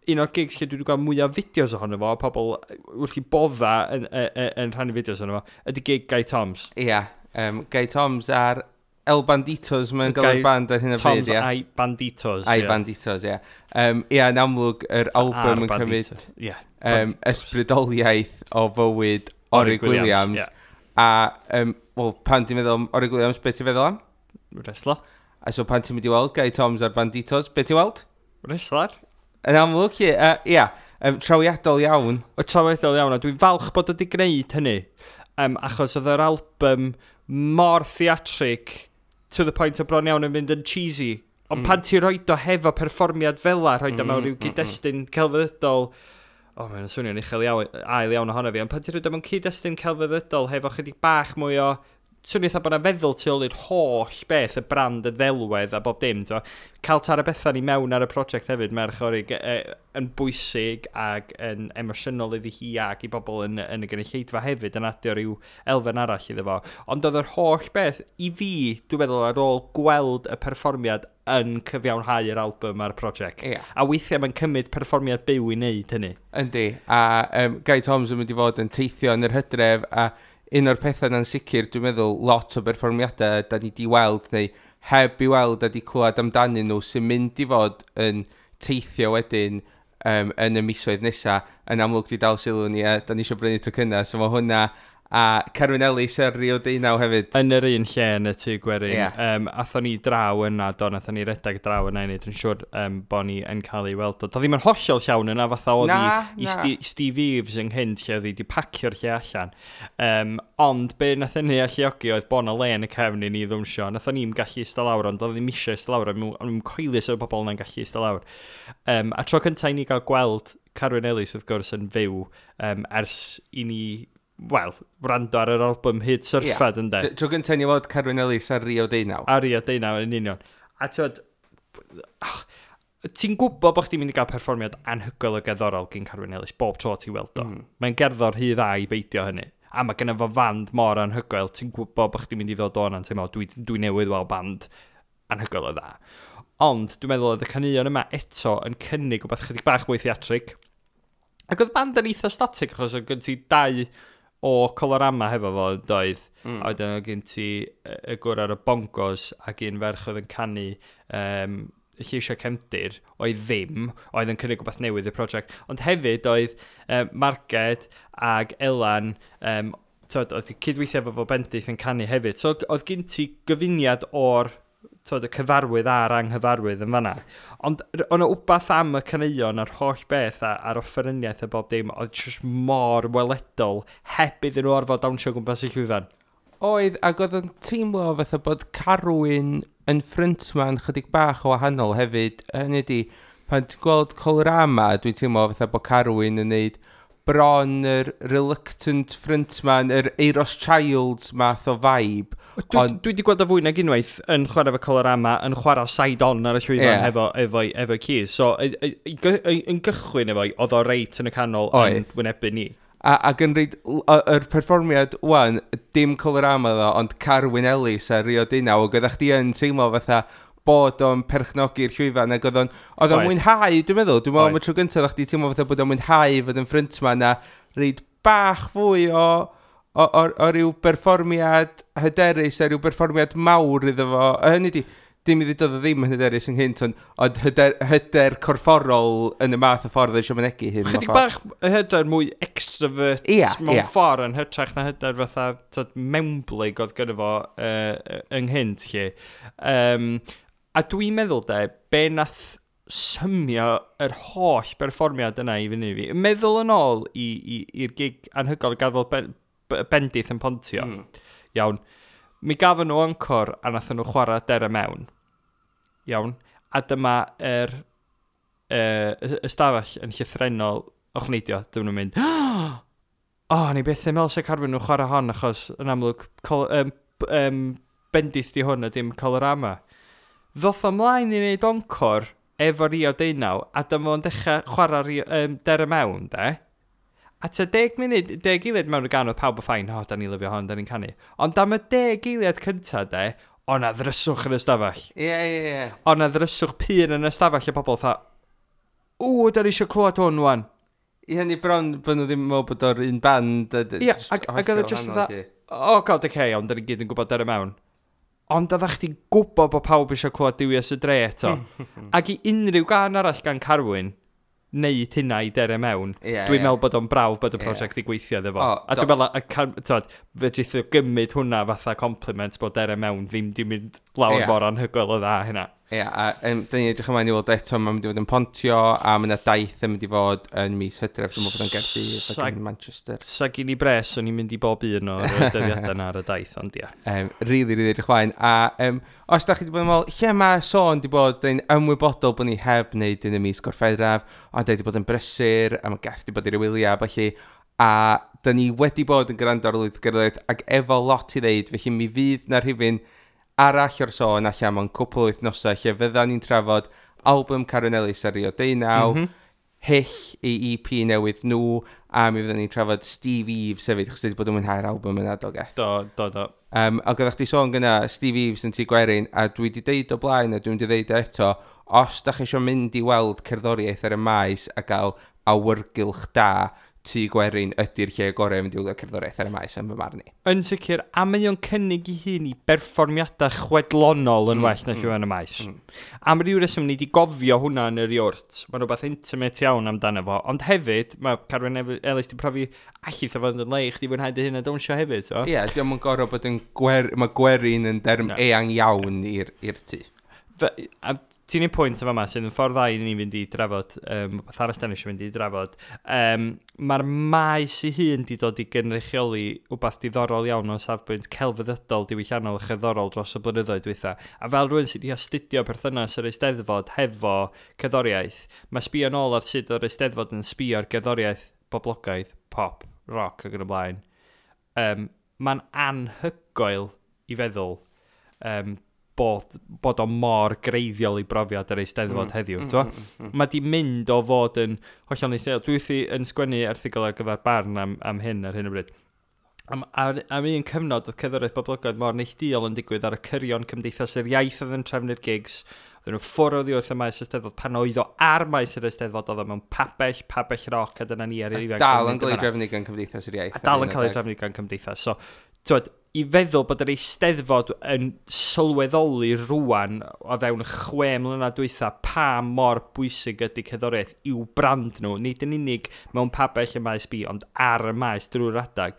[SPEAKER 2] un o'r gigs lle dwi wedi gweld mwyaf fideos ohono fo, pobl wrth i bodda yn rhannu fideos ohono fo, ydy gig Gai Toms.
[SPEAKER 1] Ia, Gai Toms ar El Banditos, mae'n gael
[SPEAKER 2] Gai
[SPEAKER 1] y band ar hyn o bryd,
[SPEAKER 2] Toms
[SPEAKER 1] ia.
[SPEAKER 2] a'i Banditos,
[SPEAKER 1] A'i
[SPEAKER 2] ie.
[SPEAKER 1] Banditos, ie. Ia, yn amlwg, yr album yn cymryd,
[SPEAKER 2] Banditos, ie, Banditos.
[SPEAKER 1] ysbrydoliaeth o fywyd Orig
[SPEAKER 2] Orig Williams,
[SPEAKER 1] Williams.
[SPEAKER 2] ie.
[SPEAKER 1] A, wel, pan ti'n meddwl am Orig Williams, beth ti'n feddwl am?
[SPEAKER 2] Wrestler.
[SPEAKER 1] A so pan ti'n mynd i weld Gai Toms a'r Banditos, beth ti'n weld?
[SPEAKER 2] Wrestler.
[SPEAKER 1] Yn amlwg, ie, ia, trawiadol iawn.
[SPEAKER 2] O, trawiadol iawn, a dwi'n falch bod wedi gwneud hynny. Achos oedd yr album mor theatrig to the point o bron iawn yn mynd yn cheesy. Ond pan ti roed o hefo perfformiad fel la, roed o mewn rhyw gyd-destun celfyddydol, o, mae'n swnio'n uchel iawn, ail iawn ohono fi, ond pan ti roed o mewn cyd-destun celfyddydol hefo chydig bach mwy o swnio eitha bod 'na feddwl tu ôl i'r holl beth, y brand, y ddelwedd a bob dim, t'mo'. Cael Tara Bethan i mewn ar y prosiect hefyd, merch Orig, yn bwysig ac yn emosiynol iddi hi ac i bobl yn y gynulleidfa hefyd yn adio rhyw elfen arall iddo fo. Ond oedd yr holl beth, i fi, dwi'n meddwl, ar ôl gweld y perfformiad yn cyfiawnhau yr album a'r prosiect. A weithiau mae'n cymryd perfformiad byw i wneud hynny.
[SPEAKER 1] Yndi, a Gai Toms yn mynd i fod yn teithio yn yr hydref, a un o'r pethau na'n sicr, dwi'n meddwl, lot o berfformiadau da ni di weld neu heb i weld a di clywed amdanyn nhw sy'n mynd i fod yn teithio wedyn yn y misoedd nesaf, yn amlwg di dal sylw ni a da ni eisiau brynu tocynnau, so mae hwnna a Carwyn Ellis ar Rio Deunaw hefyd.
[SPEAKER 2] Yn yr un lle yn y Tŷ Gwerin. Yeah. Athon ni draw yna, do, nathon ni redag draw yna i wneud yn siŵr bod ni yn cael ei weld. Doedd ddim yn hollol llawn yna, fatha oedd i Steve Eaves ynghynt lle oedd hi wedi pacio'r lle allan. Ond be nath hynny alluogi oedd bod 'na le yn y cefn i ni ddwnsio. Nathon ni'm gallu eistedd lawr, ond oedd ddim eisiau eistedd lawr, o'n i'n coelus o'r bobl yna'n gallu eistedd lawr. A tro cyntaf i ni gael gweld Carwyn Ellis, wrth gwrs, yn fyw ers i ni, wel, wrando ar yr album Hyd Syrffed, yeah, ynde?
[SPEAKER 1] Tro gyntaf ni weld Carwyn Ellis ar Rio Deunaw.
[SPEAKER 2] Ar Rio Deunaw, yn union. A ti'n ti'n gwybod bod chdi'n mynd i gael perfformiad anhygoel o gerddorol gyn Carwyn Ellis bob tro ti'n weld o. Mae'n gerddor rhy dda i beidio hynny. A mae genna fo fand mor anhygoel, ti'n gwybod bod chdi'n mynd i ddod o'n teimlo, dwi newydd weld band anhygoel o dda. Ond dwi'n meddwl oedd y caneuon yma eto yn cynnig rhywbeth chydig bach mwy theatrig. Ac oedd band yn eitha static, achos oedd gen ti dau o Colorama hefo fo, doedd. A wedyn oedd gen ti y gwr ar y bongos ac un ferch oedd yn canu lleisiau cefndir, oedd ddim, oedd yn cynnig rhywbeth newydd i'r prosiect. Ond hefyd oedd Marged ag Elan, tyd, oedd cydweithio efo fo Bendith yn canu hefyd. So oedd gen ti gyfuniad o'r, tyd, y cyfarwydd a'r anghyfarwydd yn fanna. Ond oedd 'na wbath am y caneuon a'r holl beth a'r offeryniaeth a bob dim oedd just mor weledol heb iddyn nhw orfod dawnsio gwmpas y llwyfan.
[SPEAKER 1] Oedd, ac oedd yn teimlo fatha bod Carwyn yn frontman chydig bach o wahanol hefyd. Hynny ydi, pan ti'n gweld Colorama, dwi'n teimlo fatha bod Carwyn yn neud bron yr reluctant frontman, yr Euros Childs math o vibe.
[SPEAKER 2] Dwi wedi gweld o fwy nag unwaith yn chwarae efo Colorama, yn chwarae side-on ar y llwyfan efo keys. So, yn gychwyn efo, oedd o reit yn y canol yn wynebu ni.
[SPEAKER 1] Ac yn reid, yr perfformiad wan, dim Colorama ddo, ond Carwyn Ellis ar Rio Deunaw, ac oeddech chdi yn teimlo fatha bod o'n perchnogi'r llwyfan, ac oedd o'n mwynhau, dwi'n meddwl am y tro gyntaf oeddech chdi teimlo fatha bod o'n mwynhau fod yn frontman a reid bach fwy o ryw berfformiad hyderus a ryw berfformiad mawr iddo fo. A hynny di, dim i ddweud oedd o ddim yn hyderus ynghynt, ond hyder corfforol yn y math o ffordd eisiau mynegi hyn.
[SPEAKER 2] Chydig bach hyder mwy extrovert mewn ffordd yn hytrach na hyder fatha, tyd, mewnblyg oedd gyda fo ynghynt lle. A dwi'n meddwl de, be nath symio yr holl berfformiad yna i fyny fi. Meddwl yn ôl i'r gig anhygoel gafodd Bendith yn Pontio. Iawn. Mi gafon nhw encore a nathon nhw chwarae Dere Mewn. Iawn. A dyma yr ystafell yn llythrennol ochneidio. Dyma nhw'n mynd, o, ni byth yn meddwl se Carwyn nhw'n chwarae hon, achos yn amlwg Bendith di hwn a dim Colorama. Ddoth ymlaen i wneud encore efo Rio Deunaw, a dyma fo'n dechrau chwarae Dere Mewn, de. A tua 10 munud, 10 eiliad mewn y gan oedd pawb o fine, o, da ni'n lyfio hon, da ni'n canu. Ond am y 10 eiliad cynta, de, o na ddryswch yn y stafell.
[SPEAKER 1] Ie, ie, ie.
[SPEAKER 2] O na ddryswch pur yn y stafell, a pobl fatha, ww, da ni eisiau clywed hwn wan.
[SPEAKER 1] I hynny bron bod nhw ddim yn meddwl bod o'r un band.
[SPEAKER 2] Ie, ac oedd o just fatha, oh god, okay, ond da ni gyd yn gwybod Dere Mewn. Ond oeddech chdi'n gwybod bod pawb eisiau clywed Duwies y Dre eto. Ac i unrhyw gan arall gan Carwyn, neud hynna i Dere Mewn, dwi'n meddwl bod o'n brawf bod y prosiect i gweithio iddo fo. A dwi'n meddwl, tyd, fedrith o gymryd hwnna fatha compliment bod Dere Mewn ddim di mynd lawr mor anhygoel o dda hynna.
[SPEAKER 1] Ie, a dyn ni'n edrych ymlaen i weld eto, mae'n mynd i fod yn Pontio, a mae yna daith yn mynd i fod yn mis Hydref, dwi'n meddwl bod yn Gaerdydd ac yn Manchester.
[SPEAKER 2] Sa gyn i bres, o'n i'n mynd i bob un o'r dyddiadau yna ar y daith, ond ia.
[SPEAKER 1] Really, really edrych ymlaen. A os da chi wedi bod yn meddwl, lle mae sôn di bod, dyn ni'n ymwybodol bod ni heb wneud yn y mis Gorffennaf, ond da ni wedi bod yn brysur, a mae Geth wedi bod i'r wyliau, felly, a da ni wedi bod yn gwrando ar lwyth gerddoriaeth ac efo lot i ddeud, felly mi fydd na rhifyn arall o'r sôn allan mewn cwpl o wythnosau lle fydda ni'n trafod album Carwyn Ellis ar Rio Deunaw, Hyll i EP newydd nhw, a mi fydda ni'n trafod Steve Eaves hefyd, achos wedi bod yn mwynhau'r album yna, do Geth.
[SPEAKER 2] Do.
[SPEAKER 1] Ac oeddech chdi sôn gyna Steve Eaves yn Tŷ Gwerin, a dwi wedi deud o blaen, a dwi'n wedi deud eto, os da chi eisiau mynd i weld cerddoriaeth ar y maes a gael awyrgylch da, Tŷ Gwerin ydy'r lle gorau i fynd i wylio cerddoriaeth ar y maes yn fy marn i.
[SPEAKER 2] Yn sicr, a mae o'n cynnig i hun i berfformiadau chwedlonol yn well na llwyfan y maes. Am ryw reswm ni wedi gofio hwnna yn yr iwrt. Mae'n rhywbeth intimate iawn amdano fo. Ond hefyd, mae Carwyn Ellis di profi allith o fod yn le i chdi fwynhau dy hun a dawnsio hefyd.
[SPEAKER 1] Ie, yeah, diolch yn gorfod bod yn mae gwerin yn derm eang iawn i'r tŷ.
[SPEAKER 2] A ti'n un pwynt yma sydd yn ffordd dda i ni fynd i drafod, beth arall da ni eisiau mynd i drafod. Mae'r maes ei hun di dod i gynrychioli wbath diddorol iawn o safbwynt celfyddydol, diwylliannol a cherddorol dros y blynyddoedd dwytha. A fel rhywun sydd wedi astudio perthynas yr Eisteddfod hefo cerddoriaeth, mae sbio nôl ar sut o'r Eisteddfod yn sbio ar gerddoriaeth boblogaidd, pop, rock ac yn y blaen. Mae'n anhygoel i feddwl bod o mor greiddiol i brofiad yr Eisteddfod heddiw. Mae di mynd o fod yn hollol neilltuol. Dwi wrthi yn sgwennu erthygl ar gyfer Barn am hyn ar hyn o bryd. Am un cyfnod oedd cerddoriaeth boblogaidd mor neilltuol yn digwydd ar y cyrion Cymdeithas yr Iaith oedd yn trefnu'r gigs. Oedden nhw ffwrdd oddi wrth y maes Eisteddfod. Pan oedd o ar maes yr Eisteddfod, oedd o mewn pabell roc, a dyna ni ar yr ifanc.
[SPEAKER 1] Dal yn cael ei drefnu gan Cymdeithas yr Iaith.
[SPEAKER 2] A dal yn cael ei drefnu gan Cymdeithas. So, twyd, i feddwl bod yr Eisteddfod yn sylweddoli rwan o fewn 6 mlynedd dwytha pa mor bwysig ydy cerddoriaeth i'w brand nhw, nid yn unig mewn pabell y maes B, ond ar y maes drwy'r adag.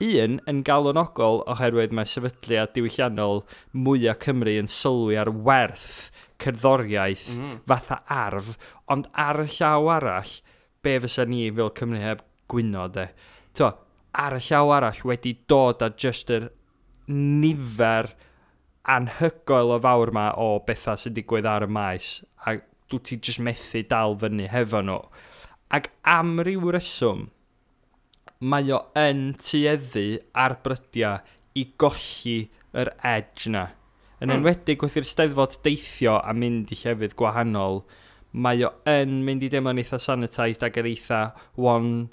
[SPEAKER 2] Un, yn galonogol oherwydd mae sefydliad diwylliannol mwyaf Cymru yn sylwi ar werth cerddoriaeth fatha arf, ond ar y llaw arall, be fysa ni fel Cymru heb gwyno de. To, ar y llaw arall wedi dod â just yr nifer anhygoel o fawr ma o bethau sy'n digwydd ar y maes, a dwi ti just methu dal fyny hefo nhw. Ac am ryw reswm, mae o yn tueddu ar brydiau i golli yr edge na. Yn enwedig wrth i'r Steddfod deithio a mynd i llefydd gwahanol, mae o yn mynd i deimlo'n eitha sanitised ac yr eitha one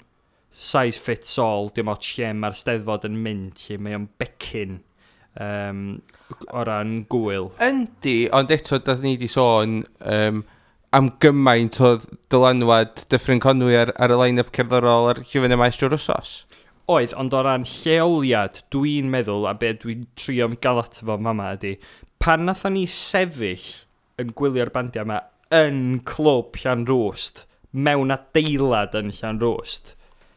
[SPEAKER 2] size fits all, dim ots lle mae'r Steddfod yn mynd, lle mae o'n becyn o ran gwyl.
[SPEAKER 1] Yndi, ond eto, da ni wedi sôn am gymaint o dylanwad Dyffryn Conwy ar y line-up cerddorol ar llwyfan y maes drwy'r wsos.
[SPEAKER 2] Oedd, ond o ran lleoliad, dwi'n meddwl, a be dwi'n trio gael ato fo mama ydy, pan nathon ni sefyll yn gwylio'r bandiau yma yn clwb Llanrwst, mewn adeilad yn Llanrwst,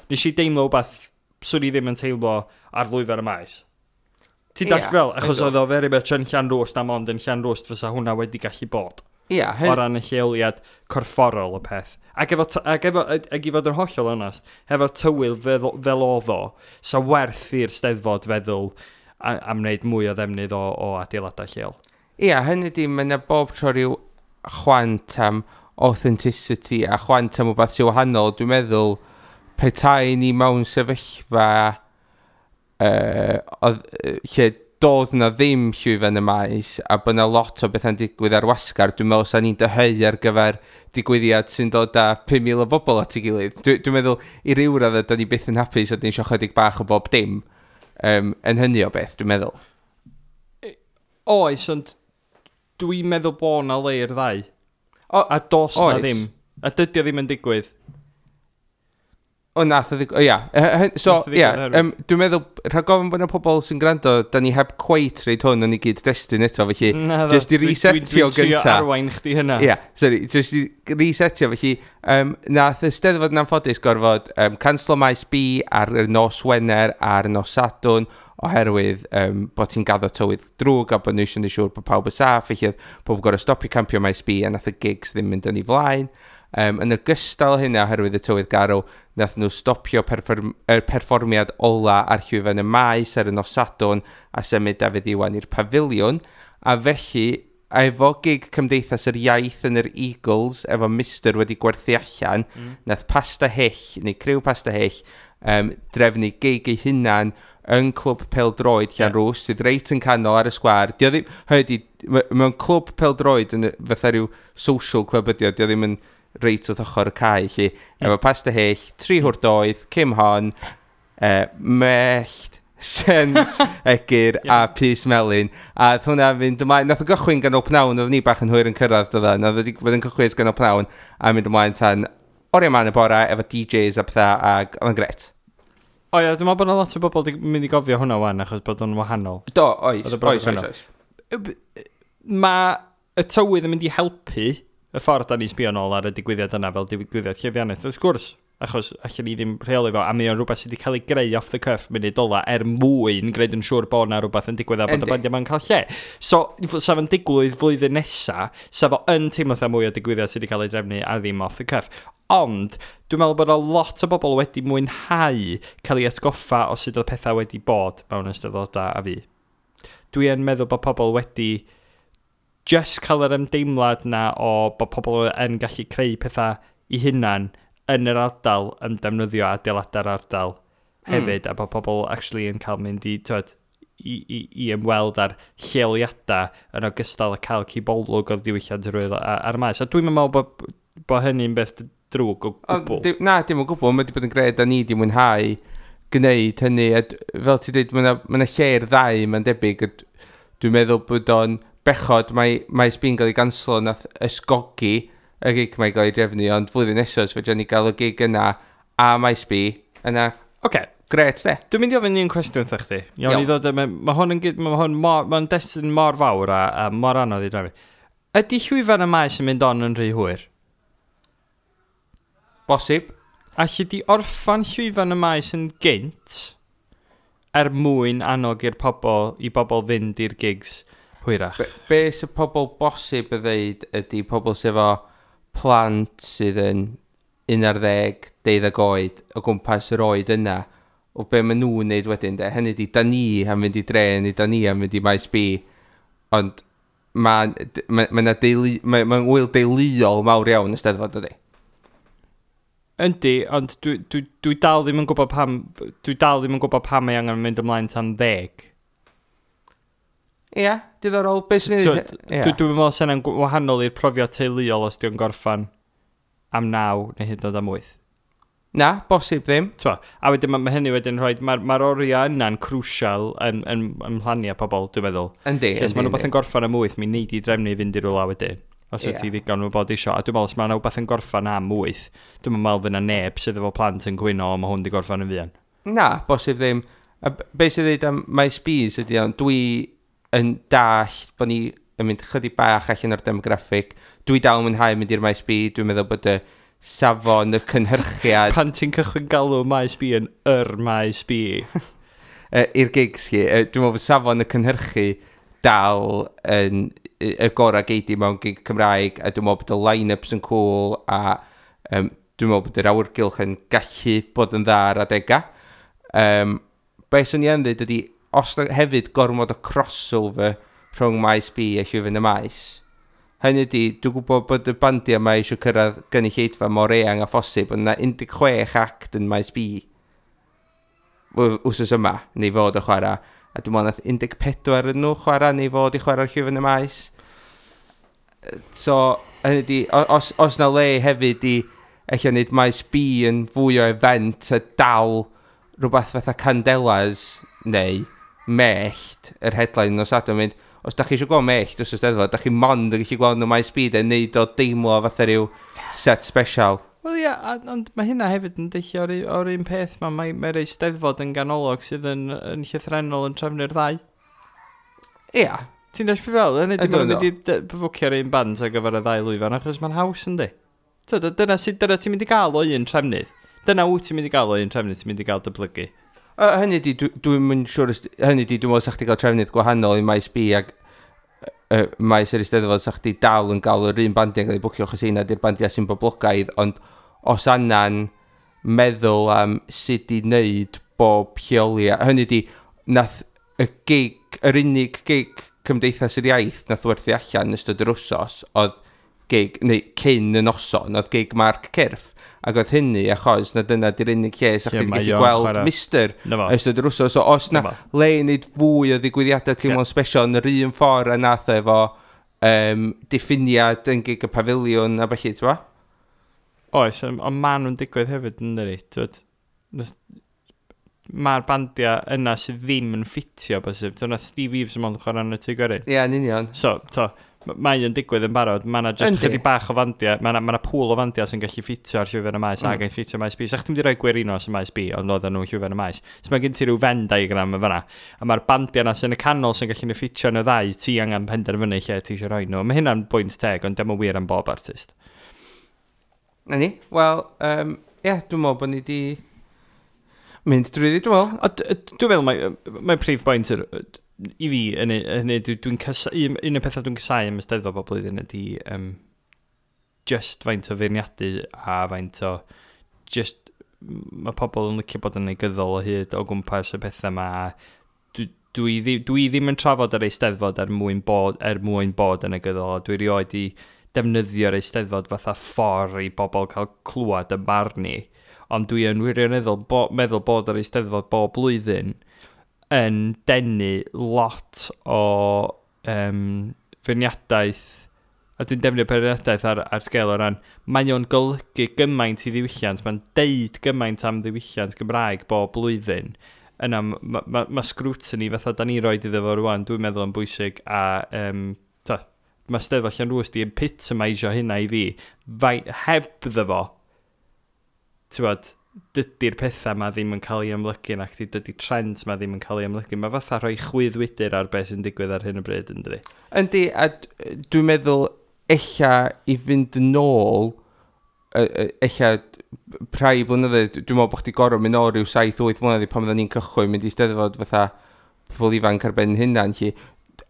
[SPEAKER 2] nes i deimlo wbath swn i ddim yn teimlo ar lwyfan y maes. Ti'n dall fel, achos oedd o very much yn Llanrwst am ond yn Llanrwst fysa hwnna wedi gallu bod. O ran y lleoliad corfforol y peth. Ac i fod yn hollol onast, hefo tywydd fel oedd o, sa werth i'r Steddfod feddwl am wneud mwy o ddefnydd o adeiladau lleol.
[SPEAKER 1] Ia, hynny di, mae yna bob tro rhyw chwant am authenticity a chwant am wbath sy'n wahanol. Dwi'n meddwl, petai ni mewn sefyllfa lle doedd na ddim llwyfan y maes a bod na lot o bethau'n digwydd ar wasgar, dwi'n meddwl sa'n ni'n dyheu ar gyfer digwyddiad sy'n dod â 5,000 o bobl at ei gilydd. Dwi'n meddwl i ryw raddau, da ni byth yn hapus a dyn ni eisiau chydig bach o bob dim yn hynny o beth, dwi'n meddwl.
[SPEAKER 2] Oes, ond dwi'n meddwl bod na le i'r ddau. A dos na ddim. A dydy o ddim yn digwydd.
[SPEAKER 1] O, nath o ddigwydd, ia. So, ia, dwi'n meddwl, rhag ofn bod yna pobl sy'n gwrando, da ni heb cweit reid hwn yn ei gyd-destun eto, felly, just i resetio gynta.
[SPEAKER 2] Dwi'n trio arwain chdi hynna.
[SPEAKER 1] Ia, sorry, just i resetio, felly, nath y Steddfod yn anffodus gorfod canslo maes B ar y nos Wener a'r nos Sadwrn, oherwydd bod ti'n gaddo tywydd drwg a bod nhw eisiau gwneud siŵr bod pawb yn saff, felly oedd pobl gorfod stopio campio maes B a nath y gigs ddim mynd yn ei flaen. Yn ogystal hynna, oherwydd y tywydd garw, nath nhw stopio perfformiad ola ar llwyfan y maes ar y nos Sadwrn a symud Dafydd Iwan i'r pafiliwn. A felly, efo gig Cymdeithas yr Iaith yn yr Eagles, efo Mister wedi gwerthu allan, nath Pasta Hyll, neu criw Pasta Hyll, drefnu gig ei hunan yn clwb pêl-droed Llanrwst, sydd reit yn canol ar y sgwâr. Dio ddim, hynny, mewn clwb pêl-droed yn fatha rhyw social club ydi o, dio ddim yn reit wrth ochr y cae, lle. Efo Pasta Hyll, Tri Hwr Doedd, Kim Hon, Mellt, Sens, Egyr a Pys Melyn. A oedd hwnna fynd ymlaen, nath o gychwyn ganol pnawn, oedd ni bach yn hwyr yn cyrraedd, doedd o, nath o wedi bod yn cychwyn ganol pnawn a mynd ymlaen tan oriau man y bora efo DJs a pethau, ac oedd yn gret.
[SPEAKER 2] O ia, dwi'n meddwl bod yna lot o bobl wedi mynd i gofio hwnna wan, achos bod o'n wahanol.
[SPEAKER 1] Do, oes, oes, oes, oes.
[SPEAKER 2] Mae y tywydd yn mynd i helpu y ffordd da ni'n sbio nôl ar y digwyddiad yna fel digwyddiad llwyddiannus, wrth gwrs, achos allan ni ddim rheoli fo, a mae o'n rhywbeth sydd wedi cael ei greu off the cuff munud ola er mwyn gwneud yn siŵr bod yna rhywbeth yn digwydd a bod y bandiau ma'n cael lle. So, sa fo'n digwydd flwyddyn nesa, sa fo yn teimlo fatha mwy o digwyddiad sydd wedi cael ei drefnu a ddim off the cuff. Ond, dwi'n meddwl bod a lot o bobl wedi mwynhau cael ei atgoffa o sut oedd pethau wedi bod mewn eisteddfodau a fi. Dwi yn meddwl bod pobl wedi just cael yr ymdeimlad na o bod pobl yn gallu creu pethau i hunan yn yr ardal yn defnyddio adeiladau'r ardal hefyd, a bod pobl actually yn cael mynd i, twed, i ymweld ar lleoliadau yn ogystal â cael cibolwg o'r diwylliant yr wyl ar y maes. A dwi'n meddwl bod hynny'n beth drwg o gwbl.
[SPEAKER 1] Na, dim o gwbl. Mae wedi bod yn gred a ni wedi mwynhau gwneud hynny. A fel ti'n dweud, mae yna lle i'r ddau, mae'n debyg. Dwi'n meddwl bod o'n bechod, mae Maes B'n gael ei ganslo nath ysgogi y gig mae'n gael ei drefnu, ond flwyddyn nesaf, os fedrwn ni gael y gig yna a Maes B, yna, oce, gret de.
[SPEAKER 2] Dwi'n mynd i ofyn un cwestiwn wrtha chdi. Iawn, i ddod, mae hwn yn, mae hwn mor, mae'n destun mor fawr a mor anodd i drefnu. Ydy llwyfan y maes yn mynd on yn rhy hwyr?
[SPEAKER 1] Bosib.
[SPEAKER 2] Alli di orffan llwyfan y maes yn gynt er mwyn annog i'r pobl, i bobl fynd i'r gigs hwyrach?
[SPEAKER 1] Be sy'n pobl bosib y ddeud ydy pobl sydd efo plant sydd yn 11, 12 oed o gwmpas yr oed yna, o be maen nhw'n neud wedyn de. Hynny ydi, da ni am fynd i dre, neu da ni am fynd i Maes B, ond mae'n ma, ma deulu, ma wyl deuluol mawr iawn y Steddfod ydy.
[SPEAKER 2] Yndi, ond dwi dal ddim yn gwybod pam, dwi dal ddim yn gwybod pam mae angen mynd ymlaen tan 10.
[SPEAKER 1] Ia, diddorol. Be sy'n ei ddweud?
[SPEAKER 2] Dwi'n meddwl sy'n yna'n wahanol i'r profiad teuluol os di'n gorffan am 9 neu hyd yn oed am 8.
[SPEAKER 1] Na, bosib ddim.
[SPEAKER 2] Twa, a wedyn mae hynny wedyn rhoi, mae'r oriau yna'n crucial yn mhlaniau pobl, dwi'n meddwl.
[SPEAKER 1] Yndi,
[SPEAKER 2] yndi. Os mae rhywbeth yn gorffan am 8, mi neud i drefnu i fynd i rywle wedyn. Os wyt ti ddigon o bod isio. A dwi'n meddwl, os mae rhywbeth yn gorffan am 8, dwi'n meddwl fydd yna neb sydd efo plant yn gwyno, mae hwn di gorffan yn fuan.
[SPEAKER 1] Na, bosib ddim. A be sydd dweud am Maes B's ydy, ond dwi yn dallt bod ni yn mynd chydig bach allan o'r demograffig. Dwi dal yn mwynhau mynd i'r Maes B, dwi'n meddwl bod y safon, y cynhyrchiad...
[SPEAKER 2] Pan ti'n cychwyn galw Maes B yn yr Maes B.
[SPEAKER 1] I'r gigs chi, dwi'n meddwl bod safon y cynhyrchu dal yn y gorau geidi mewn gig Cymraeg, a dwi'n meddwl bod y line-ups yn cool, a dwi'n meddwl bod yr awyrgylch yn gallu bod yn dda ar adegau. Be swn i yn dweud ydy, os na hefyd gormod o crossover rhwng Maes B a Llwyfan y Maes. Hynny ydy, dwi'n gwybod bod y bandiau yma eisiau cyrraedd gynulleidfa mor eang a phosib, ond na 16 act yn Maes B wsos yma, neu fod o chwarae. A dwi'n meddwl nath 14 yn nhw chwarae, neu fod i chwarae'r Llwyfan y Maes. So, hynny ydy, os na le hefyd i ella wneud Maes B yn fwy o event a dal rhywbeth fatha Candelas neu Mellt, yr headline nos Sadwrn, mynd, os da chi eisiau gweld Mellt wrth y Steddfod, da chi mond yn gallu gweld nhw Maes B, de, neud o deimlo fatha rhyw set special.
[SPEAKER 2] Wel ia, ond mae hynna hefyd yn deillio o'r un peth, mae'r Eisteddfod yn ganolog sydd yn llythrennol yn trefnu'r ddau.
[SPEAKER 1] Ia.
[SPEAKER 2] Ti'n deall beth fel? Hynny, dim ond mynd i fwcio'r un band ar gyfer y ddau lwyfan, achos mae'n haws yndi. Dyna ti'n mynd i gael o un trefnydd. Dyna wyt ti'n mynd i gael o un trefnydd, ti'n mynd i gael dyblygu.
[SPEAKER 1] Hynny di, dwi'n mynd siŵr, hynny di, dwi'n meddwl sa chdi gael trefnydd gwahanol i Maes B ac Maes yr Eisteddfod, sa chdi dal yn gael yr un bandiau yn cael ei bwcio, achos heina di'r bandiau sy'n boblogaidd, ond os anna'n meddwl am sut i wneud bob lleoliad, hynny di, nath y gig, yr unig gig Cymdeithas yr Iaith nath werthu allan ystod yr wsos, oedd gig, neu cyn y noson, oedd gig Mark Cyrff, ac oedd hynny achos na dyna di'r unig lle sa chdi gallu gweld Mister ystod yr wsos. So os na le i wneud fwy o ddigwyddiadau teimlo'n special yn yr un ffordd a nath o efo diffiniad yn gig y pafiliwn a felly, ti'n bo?
[SPEAKER 2] Oes, ond maen nhw'n digwydd hefyd yn dydi, ti'n mae'r bandiau yna sydd ddim yn ffitio bosib. Nath Steve Eaves yn mond chwarae yn y Tŷ Gwerin.
[SPEAKER 1] Ie, yn union.
[SPEAKER 2] So, to, Mae yn digwydd yn barod, mae yna just chydig bach o fandiau, mae yna ma pŵl o fandiau sy'n gallu ffitio ar llwyfan y maes ac yn ffitio maes B. Sa chdi'n mynd i roi Gwerinos yn maes B, ond oedden nhw'n llwyfan y maes. So mae gen ti rhyw Venn diagram yn fanna. A mae'r bandiau yna sy'n y canol sy'n gallu ffitio yn y ddau, ti angen penderfynu lle ti eisiau rhoi nhw. Mae hynna'n bwynt teg, ond dim yn wir am bob artist.
[SPEAKER 1] Na ni, wel, ie, dwi'n meddwl bod ni di mynd drwyddi, dwi'n meddwl.
[SPEAKER 2] A dwi'n meddwl mae prif bwynt i fi, hynny, dwi'n un o'r pethau dwi'n casau am y Steddfod bob blwyddyn ydy just faint o feirniadu a faint o just mae pobl yn licio bod yn negyddol o hyd o gwmpas y pethau yma. Dwi ddim yn trafod yr Eisteddfod er mwyn bod yn negyddol, a dwi rioed i defnyddio'r Eisteddfod fatha ffordd i bobl cael clywed y barn ni. Ond dwi yn wirioneddol meddwl bod yr Eisteddfod bob blwyddyn yn denu lot o feirniadaeth, a dwi'n defnyddio beirniadaeth ar sgêl o ran, mae o'n golygu gymaint i ddiwylliant, mae'n deud gymaint am ddiwylliant Gymraeg bob blwyddyn. Yna, mae ma scrutiny fatha da ni roed iddo fo rwan, dwi'n meddwl yn bwysig, a ta, mae Steddfod Llanrwst di epitomisio hynna i fi. Fai, heb ddo fo, ti'n bod, dydy'r pethau ma ddim yn cael ei amlygu nac di, dydy trends ma ddim yn cael ei amlygu. Mae fatha rhoi chwyddwydr ar beth sy'n digwydd ar hyn o bryd, yn dydi?
[SPEAKER 1] Yndi, a dwi'n meddwl ella i fynd yn ôl, ella rhai blynyddoedd, dwi'n meddwl bod chdi gorfod mynd nôl rhyw 7-8 mlynedd i pan oedden ni'n cychwyn mynd i Steddfod fatha pobl ifanc ar ben hynna. Lly.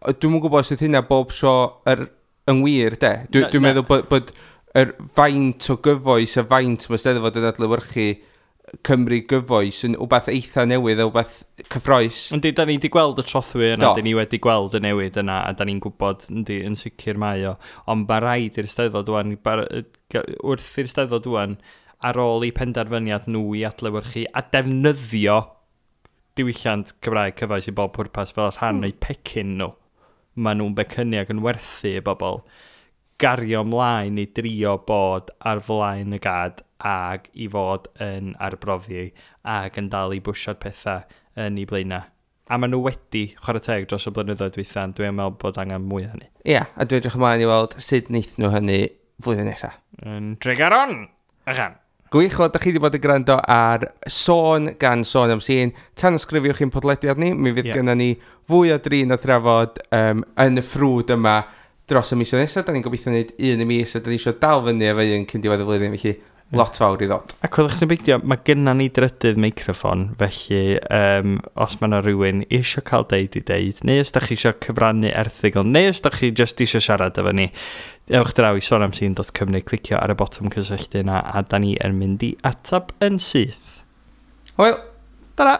[SPEAKER 1] Dwi'm yn gwybod sut hynna bob tro yn wir, de. Dwi'n
[SPEAKER 2] Na.
[SPEAKER 1] meddwl bod yr faint o gyfoes a faint mae Steddfod yn adlewyrchu Cymru gyfoes yn wbath eitha newydd a wbath cyffrous.
[SPEAKER 2] Yndi, da ni wedi gweld y trothwy yna, da ni wedi gweld y newid yna, a da ni'n gwybod, yndi, yn sicr mae o. Ond mae rhaid i'r Steddfod wan, wrth i'r Steddfod wan, ar ôl i penderfyniad nhw i adlewyrchu a defnyddio diwylliant Cymraeg cyfoes i bob pwrpas fel rhan o'u pecyn nhw. Maen nhw'n becynnu ac yn werthu i bobl gario ymlaen i drio bod ar flaen y gad ag i fod yn arbrofi ag yn dal i bwsio'r pethau yn ei blaenau. A maen nhw wedi chwarae teg dros y blynyddoedd dwytha, ond dwi'n meddwl bod angen mwy o hynny.
[SPEAKER 1] Ia, a dwi'n edrych ymlaen i weld sut wneith nhw hynny flwyddyn nesaf.
[SPEAKER 2] Yn Tregaron! Achan!
[SPEAKER 1] Gwych, wel, da chi wedi bod yn gwrando ar Sôn gan Sôn am Sîn. Tanysgrifiwch i'n podlediad ni, mi fydd gennym ni fwy o drin a thrafod yn y ffrwd yma dros y misoedd nesaf. Da ni'n gobeithio wneud un y mis, a da ni eisiau dal fyny efo un cyn diwedd y flwyddyn, felly lot fawr i ddod.
[SPEAKER 2] A coelwch chi'n beidio, mae gynna ni drydydd meicroffon, felly os mae yna rhywun eisiau cael deud i deud, neu os da chi eisiau cyfrannu erthygl, neu os da chi just eisiau siarad efo ni, ewch draw i sonamsîn.cymru, clicio ar y botwm cysylltu yna, a da ni yn mynd i atab yn syth.
[SPEAKER 1] Hwyl!
[SPEAKER 2] Tara!